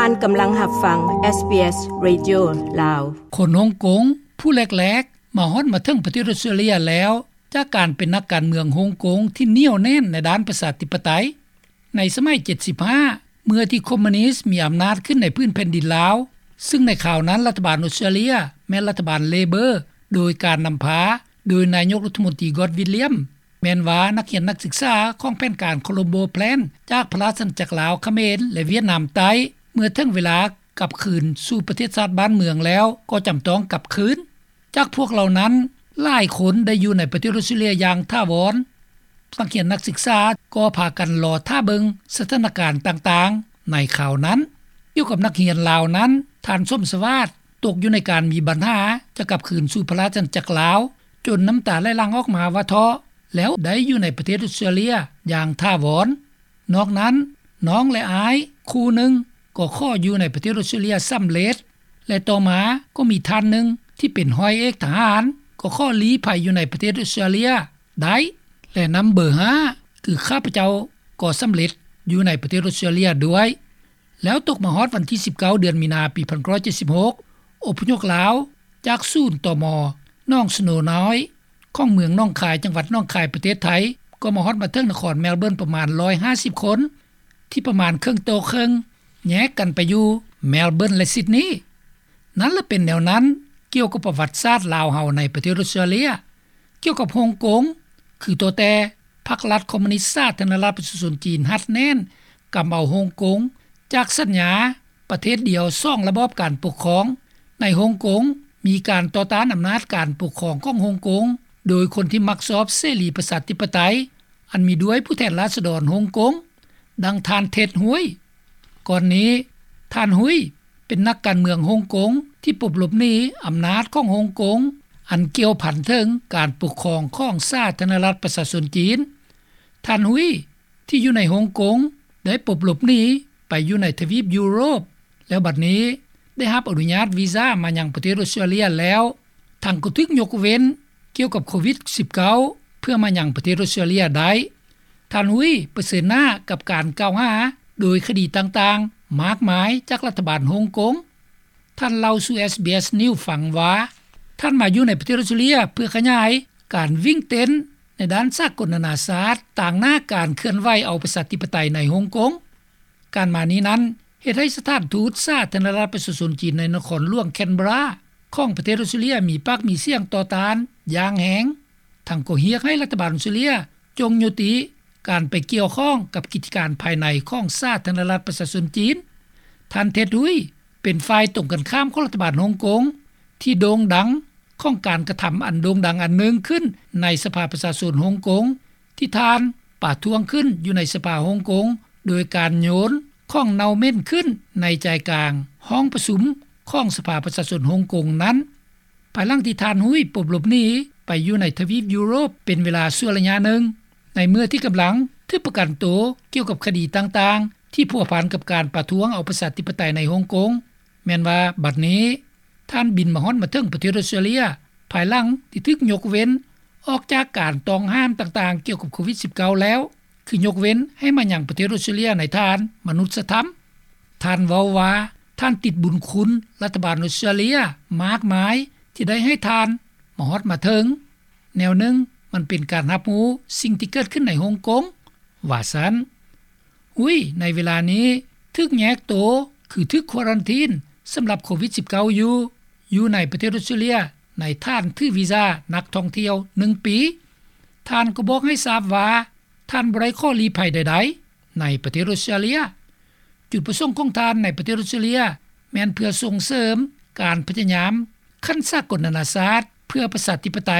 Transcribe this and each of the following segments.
ທ່ານກຳລັງຮັບຟັງ SBS Radio ລາວ. ຄົນຮົງກົງຜູ້ແລກໆ ມາຮອດມາເຖິງປະເທດອົດສະຕຣາເລຍແລ້ວ ຈາກການເປັນນັກການເມືອງຮົງກົງທີ່ໜຽວແໜ້ນໃນດ້ານປະຊາທິປະໄຕ. ໃນສະໄໝເຈັດສິບຫ້າ ເມື່ອທີ່ຄອມມູນິດມີອຳນາດຂຶ້ນໃນພື້ນແຜ່ນດິນລາວ, ຊຶ່ງໃນຄາວນັ້ນລັດຖະບານອົດສະຕຣາເລຍແມ່ນລັດຖະບານເລເບີ ໂດຍການນຳພາໂດຍນາຍົກລັດຖະມົນຕີ ກອດ ວິລຽມ. ແມ່ນວ່ານັກຮຽນນັກສຶກສາຂອງແຜນການໂຄລັມໂບແພລນ ຈາກພະລາຊະອານາຈັກລາວ, ຂະເໝນ ແລະ ຫວຽດນາມໃຕ້ ເມື່ອເຖິງເວລາກັບຄືນສູ່ປະເທດຊາດບ້ານເມືອງແລ້ວ ກໍຈຳຕ້ອງກັບຄືນ. ຈາກພວກເຫຼົ່ານັ້ນ ຫຼາຍຄົນໄດ້ຢູ່ໃນປະເທດອົດສະຕຣາເລຍຢ່າງຖາວອນ. ນັກຮຽນນັກສຶກສາກໍພາກັນລໍຖ້າເບິ່ງສະຖານະການຕ່າງໆໃນຄາວນັ້ນ. ກ່ຽວກັບນັກຮຽນລາວນັ້ນ, ທ່ານ ສົມສະຫວາດ ຕົກຢູ່ໃນການມີບັນຫາຈະກັບຄືນສູ່ພະລາຊະອານາຈັກລາວ ຈົນນ້ຳຕາໄຫຼຫຼັ່ງອອກມາວ່າທໍ້ ແລ້ວໄດ້ຢູ່ໃນປະເທດອົດສະຕຣາເລຍຢ່າງຖາວອນ. ນອກນັ້ນ, ນ້ອງ ແລະ ອ້າຍຄູ່ໜຶ່ງກໍຂໍຢູ່ໃນປະເທດອົດສະຕຣາເລຍສຳເລັດ ແລະ ຕໍ່ມາກໍມີທ່ານໜຶ່ງທີ່ເປັນຮ້ອຍເອກທະຫານ ກໍຂໍລີ້ໄພຢູ່ໃນປະເທດອົດສະຕຣາເລຍໄດ້ ແລະ ນຳເບີຫ້າ ຄືຂ້າພະເຈົ້າກໍສຳເລັດຢູ່ໃນປະເທດອົດສະຕຣາເລຍດ້ວຍ. ແລ້ວຕົກມາຮອດວັນທີສິບເກົ້າ ເດືອນມີນາ ປີພັນເກົ້າຮ້ອຍເຈັດສິບຫົກ ອົບພະຍົບລາວຈາກສູນ ຕມ ໜອງສະໂນນ້ອຍ ຂອງເມືອງໜອງຄາຍ ຈັງຫວັດໜອງຄາຍ ປະເທດໄທ ກໍມາຮອດມາເຖິງນະຄອນແມລເບີນປະມານຮ້ອຍຫ້າສິບຄົນ ທີ່ປະມານເຄິ່ງຕໍ່ເຄິ່ງ ແຍກກັນໄປຢູ່ແມລເບີນ ແລະ ຊິດນີ. ນັ້ນລະເປັນແນວນັ້ນ ກ່ຽວກັບປະຫວັດສາດລາວເຮົາໃນປະເທດອົດສະຕຣາເລຍ. ກ່ຽວກັບຮົງກົງ ຄືໂຕແຕ່ພັກລັດຄອມມູນິດສາທາລະນະລັດປະຊາຊົນຈີນຮັດແໜ້ນກຳເອົາຮົງກົງ ຈາກສັນຍາປະເທດດຽວສອງລະບອບການປົກຄອງ. ໃນຮົງກົງມີການຕໍ່ຕ້ານອຳນາດການປົກຄອງຂອງຮົງກົງ ໂດຍຄົນທີ່ມັກຊອບເສລີປະຊາທິປະໄຕ ອັນມີດ້ວຍຜູ້ແທນລາຊະດອນຮົງກົງ ດັ່ງທ່ານ ເທັດ ຮວຍ. ກ່ອນນີ້ ທ່ານ ຮຸຍ ເປັນນັກການເມືອງຮົງກົງທີ່ປົບຫຼົບໜີອຳນາດຂອງຮົງກົງ ອັນກ່ຽວພັນເຖິງການປົກຄອງຂອງສາທາລະນະລັດປະຊາຊົນຈີນ. ທ່ານ ຮຸຍ ທີ່ຢູ່ໃນຮົງກົງ ໄດ້ປົບຫຼົບໜີໄປຢູ່ໃນທະວີບຢູໂຣບ ແລ້ວບັດນີ້ໄດ້ຮັບອະນຸຍາດວີຊາມາຍັງປະເທດອົດສະຕຣາເລຍແລ້ວ. ທັງກໍຖືກຍົກເວັ້ນກ່ຽວກັບໂຄວິດສິບເກົ້າ ເພື່ອມາຍັງປະເທດອົດສະຕຣາເລຍໄດ້. ທ່ານ ຮຸຍ ປະເຊີນໜ້າກັບການກ່າວຫາໂດຍຄະດີຕ່າງໆມາກມາຍຈາກລັດຖະບານຮົງກົງ. ທ່ານເລົ່າສູ່ ເອສບີເອສ ນິວສ໌ ຟັງວ່າ ທ່ານມາຢູ່ໃນປະເທດອົດສະຕຣາເລຍເພື່ອຂະຫຍາຍການວິ່ງເຕັ້ນໃນດ້ານສາກົນນານາຊາດ ຕາງໜ້າການເຄື່ອນໄຫວເອົາປະຊາທິປະໄຕໃນຮົງກົງ. ການມານີ້ນັ້ນ ເຮັດໃຫ້ສະຖານທູດສາທາລະນະລັດປະຊາຊົນຈີນໃນນະຄອນຫຼວງແຄນເບຣາຂອງປະເທດອົດສະຕຣາເລຍມີປາກມີສຽງຕໍ່ຕ້ານຢ່າງແຮງ, ທັງກໍຮຽກໃຫ້ລັດຖະບານອົດສະຕຣາເລຍຈົ່ງຍຸຕິການໄປກ່ຽວຂ້ອງກັບກິດຈະການພາຍໃນຂອງສາທາລະນະລັດປະຊາຊົນຈີນ. ທ່ານ ເທັດ ຮຸຍ ເປັນຝ່າຍຕົງກັນຂ້າມຂອງລັດຖະບານຮົງກົງ ທີ່ໂດ່ງດັງຂອງການກະທຳອັນໂດ່ງດັງອັນໜຶ່ງຂຶ້ນໃນສະພາປະຊາຊົນຮົງກົງ ທີ່ທ່ານປະທ້ວງຂຶ້ນຢູ່ໃນສະພາຮົງກົງ ໂດຍການໂຍນຂອງເນົ່າເໝັນຂຶ້ນໃນໃຈກາງຫ້ອງປະຊຸມຂອງສະພາປະຊາຊົນຮົງກົງນັ້ນ. ພາຍຫຼັງທີ່ທ່ານ ຮຸຍ ປົບຫຼົບໜີໄປຢູ່ໃນທະວີບຢູໂຣບເປັນເວລາຊົ່ວໄລຍະໜຶ່ງ ໃນເມື່ອທີ່ກຳລັງຖືກປະກັນໂຕກ່ຽວກັບຄະດີຕ່າງໆທີ່ພົວພັນກັບການປະທ້ວງເອົາປະຊາທິປະໄຕໃນຮົງກົງ, ແມ່ນວ່າບັດນີ້ ທ່ານບິນມາຮອດມາເຖິງປະເທດອົດສະຕຣາເລຍ ພາຍຫຼັງທີ່ຖືກຍົກເວັ້ນອອກຈາກການຕ້ອງຫ້າມຕ່າງໆກ່ຽວກັບໂຄວິດສິບເກົ້າແລ້ວ ຄືຍົກເວັ້ນໃຫ້ມາຍັງປະເທດອົດສະຕຣາເລຍໃນຖານມະນຸດສະທຳ. ທ່ານເວົ້າວ່າ ທ່ານຕິດບຸນຄຸນລັດຖະບານອົດສະຕຣາເລຍມາກມາຍທີ່ໄດ້ໃຫ້ທ່ານມາຮອດມາເຖິງ. ແນວໜຶ່ງ ມັນເປັນການຮັບຮູ້ສິ່ງທີ່ເກີດຂຶ້ນໃນຮົງກົງ, ວ່າຊັ້ນ. ຮຸຍ ໃນເວລານີ້ຖືກແຍກໂຕ ຄືຖືກຄວາຣັນທີນສຳລັບໂຄວິດສິບເກົ້າຢູ່ ຢູ່ໃນປະເທດອົດສະຕຣາເລຍ ໃນຖານຖືວີຊານັກທ່ອງທ່ຽວໜຶ່ງປີ. ທ່ານກໍບອກໃຫ້ຊາບວ່າ ທ່ານບໍ່ໄດ້ຂໍລີ້ໄພໃດໆໃນປະເທດອົດສະຕຣາເລຍ. ຈຸດປະສົງຂອງທ່ານໃນປະເທດອົດສະຕຣາເລຍ ແມ່ນເພື່ອສົ່ງເສີມການພະຍາຍາມຂັ້ນສາກົນນານາຊາດເພື່ອປະຊາທິປະໄຕ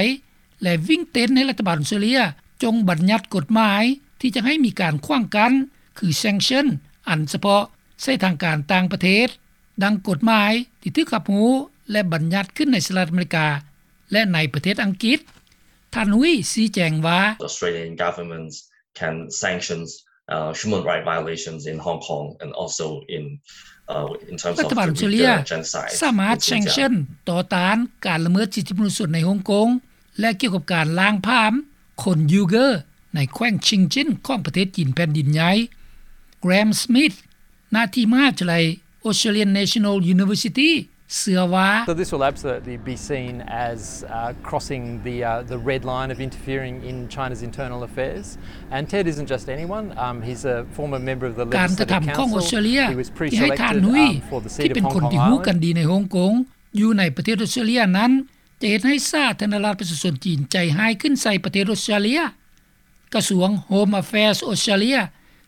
ແລະ ວິ່ງເຕັ້ນໃຫ້ລັດຖະບານອົດສະຕຣາເລຍຈົ່ງບັນຍັດກົດໝາຍທີ່ຈະໃຫ້ມີການຂວາງກັ້ນ ຄື sanction ອັນສະເພາະໃສ່ທາງການຕ່າງປະເທດ, ດັ່ງກົດໝາຍທີ່ຖືກຮັບຮູ້ ແລະ ບັນຍັດຂຶ້ນໃນສະຫະລັດອາເມລິກາ ແລະ ໃນປະເທດອັງກິດ. ທ່ານ ຮຸຍ ຊີ້ແຈງວ່າ Australian governments can sanctions, uh, human rights violations in Hong Kong and also in, uh, in terms of the Uyghur genocide in Xinjiang. ລັດຖະບານອົດສະຕຣາເລຍສາມາດ sanction ຕໍ່ຕ້ານການລະເມີດສິດທິມະນຸດຊົນໃນຮົງກົງ ແລະ ກ່ຽວກັບການລ້າງຜາມຄົນຢູເກີ້ໃນແຂວງຊິງຈິ້ນຂອງປະເທດຈີນແຜ່ນດິນໃຫຍ່. ແກຣມ ສະມິດ ນາທີ່ມະຫາວິທະຍາໄລ Australian National University ເຊື່ອວ່າ So this will absolutely be seen as, uh, crossing the, uh, the red line of interfering in China's internal affairs. And Ted isn't just anyone. Um, he's a former member of the ການກະທຳຂອງອອສເຕຣເລຍ ທີ່ໃຫ້ທ່ານ Hui ທີ່ເປັນຄົນທີ່ຮູ້ກັນດີໃນຮົງກົງ ຢູ່ໃນປະເທດອອສເຕຣເລຍນັ້ນ ຈະເຮັດໃຫ້ສາທາລະນະລັດປະຊາຊົນຈີນໃຈຮ້າຍຂຶ້ນໃສ່ປະເທດອອສເຕຣເລຍ. ກະຊວງ Home Affairs ອອສເຕຣເລຍ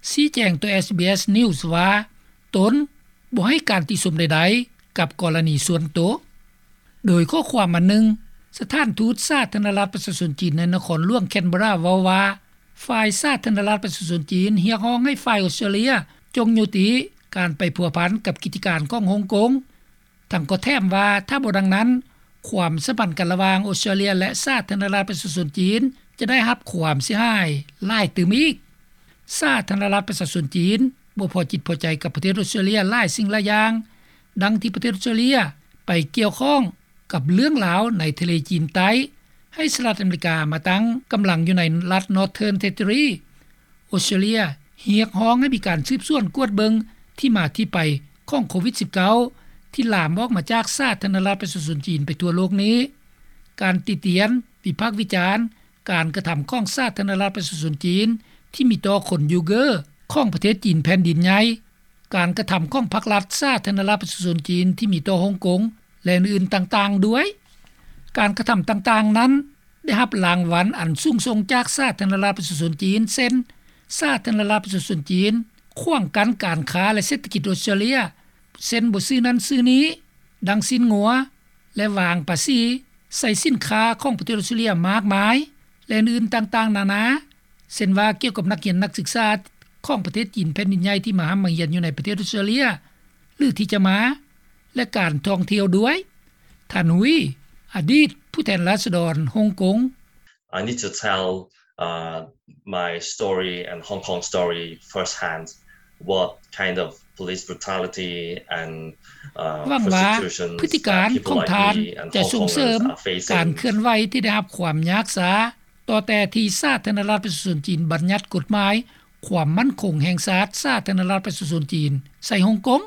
ຊີ້ແຈງຕໍ່ SBS News ວ່າ ຕົນບໍ່ໃຫ້ການຕິຊົມໃດໆກັບກໍລະນີສ່ວນໂຕ. ໂດຍຂໍ້ຄວາມອັນໜຶ່ງ, ສະຖານທູດສາທາລະນະລັດປະຊາຊົນຈີນໃນນະຄອນຫຼວງ Canberra ເວົ້າວ່າ ຝ່າຍສາທາລະນະລັດປະຊາຊົນຈີນຮຽກຮ້ອງໃຫ້ຝ່າຍອອສເຕຣເລຍຈົ່ງຍຸຕິການໄປພົວພັນກັບກິດຈະການຂອງຮົງກົງ. ທັງກໍແຖມວ່າ ຖ້າບໍ່ດັ່ງນັ້ນ, ຄວາມສຳພັນກັນລະຫວ່າງອອສເຕຣເລຍ ແລະ ສາທາລະນະລັດປະຊາຊົນຈີນ ຈະໄດ້ຮັບຄວາມເສຍຫາຍຫຼາຍຕື່ມອີກ. ສາທາລະນະລັດປະຊາຊົນຈີນບໍ່ພໍຈິດພໍໃຈກັບປະເທດອອສເຕຣເລຍຫຼາຍສິ່ງຫຼາຍຢ່າງ, ດັ່ງທີ່ປະເທດອອສເຕຣເລຍໄປກ່ຽວຂ້ອງກັບເລື່ອງລາວໃນທະເລຈີນໃຕ້, ໃຫ້ສະຫະລັດອາເມລິກາມາຕັ້ງກຳລັງຢູ່ໃນລັດ Northern Territory. ອອສເຕຣເລຍຮຽກຮ້ອງໃຫ້ມີການສືບສວນກວດເບິ່ງທີ່ມາທີ່ໄປຂອງໂຄວິດສິບເກົ້າ ທີ່ລາມອອກມາຈາກສາທາລະນະລັດປະຊາຊົນຈີນໄປທົ່ວໂລກນີ້. ການຕິຕຽນ, ວິພາກວິຈານການກະທຳຂອງສາທາລະນະລັດປະຊາຊົນຈີນທີ່ມີຕໍ່ຄົນຢູເກີຂອງປະເທດຈີນແຜ່ນດິນໃຫຍ່, ການກະທຳຂອງພັກລັດສາທາລະນະລັດປະຊາຊົນຈີນທີ່ມີຕໍ່ຮົງກົງ ແລະ ອື່ນໆຕ່າງໆດ້ວຍ. ການກະທຳຕ່າງໆນັ້ນ ໄດ້ຮັບລາງວັນອັນສູງສົ່ງຈາກສາທາລະນະລັດປະຊາຊົນຈີນ ເຊັ່ນ ສາທາລະນະລັດປະຊາຊົນຈີນຂວາງກັ້ນການຄ້າ ແລະ ເສດຖະກິດອອສເຕຣເລຍ ເຊັ່ນ ບໍ່ຊື້ນັ້ນຊື້ນີ້ ດັ່ງຊີ້ນງົວ ແລະ ວາງພາສີໃສ່ສິນຄ້າຂອງປະເທດອອສເຕຣເລຍມາກມາຍ ແລະ ອື່ນໆຕ່າງໆນານາ, ເຊັ່ນວ່າ ກ່ຽວກັບນັກຮຽນນັກສຶກສາຂອງປະເທດຈີນແຜ່ນດິນໃຫຍ່ທີ່ມາຮ່ຳມາຮຽນຢູ່ໃນປະເທດອອສເຕຣເລຍ ຫຼື ທີ່ຈະມາ ແລະ ການທ່ອງທ່ຽວດ້ວຍ. ທ່ານ Hui, ອະດີດຜູ້ແທນລາຊະດອນຮົງກົງ. I need to tell, uh, my story and Hong Kong story firsthand, what kind of police brutality and, uh, ຫວັງວ່າພຶດຕິການຂອງທ່ານຈະສົ່ງເສີມການເຄື່ອນໄຫວທີ່ໄດ້ຮັບຄວາມຍາກຊ້າ ຕໍ່ແຕ່ທີ່ສາທາລະນະລັດປະຊາຊົນຈີນບັນຍັດກົດໝາຍຄວາມໝັ້ນຄົງແຫ່ງຊາດສາທາລະນະລັດປະຊາຊົນຈີນໃສ່ຮົງກົງ.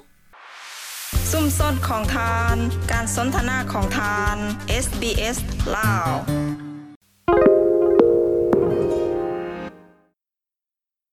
ຊຸມຊົນຂອງທ່ານ, ການສົນທະນາຂອງທ່ານ, ເອສບີເອສ ລາວ.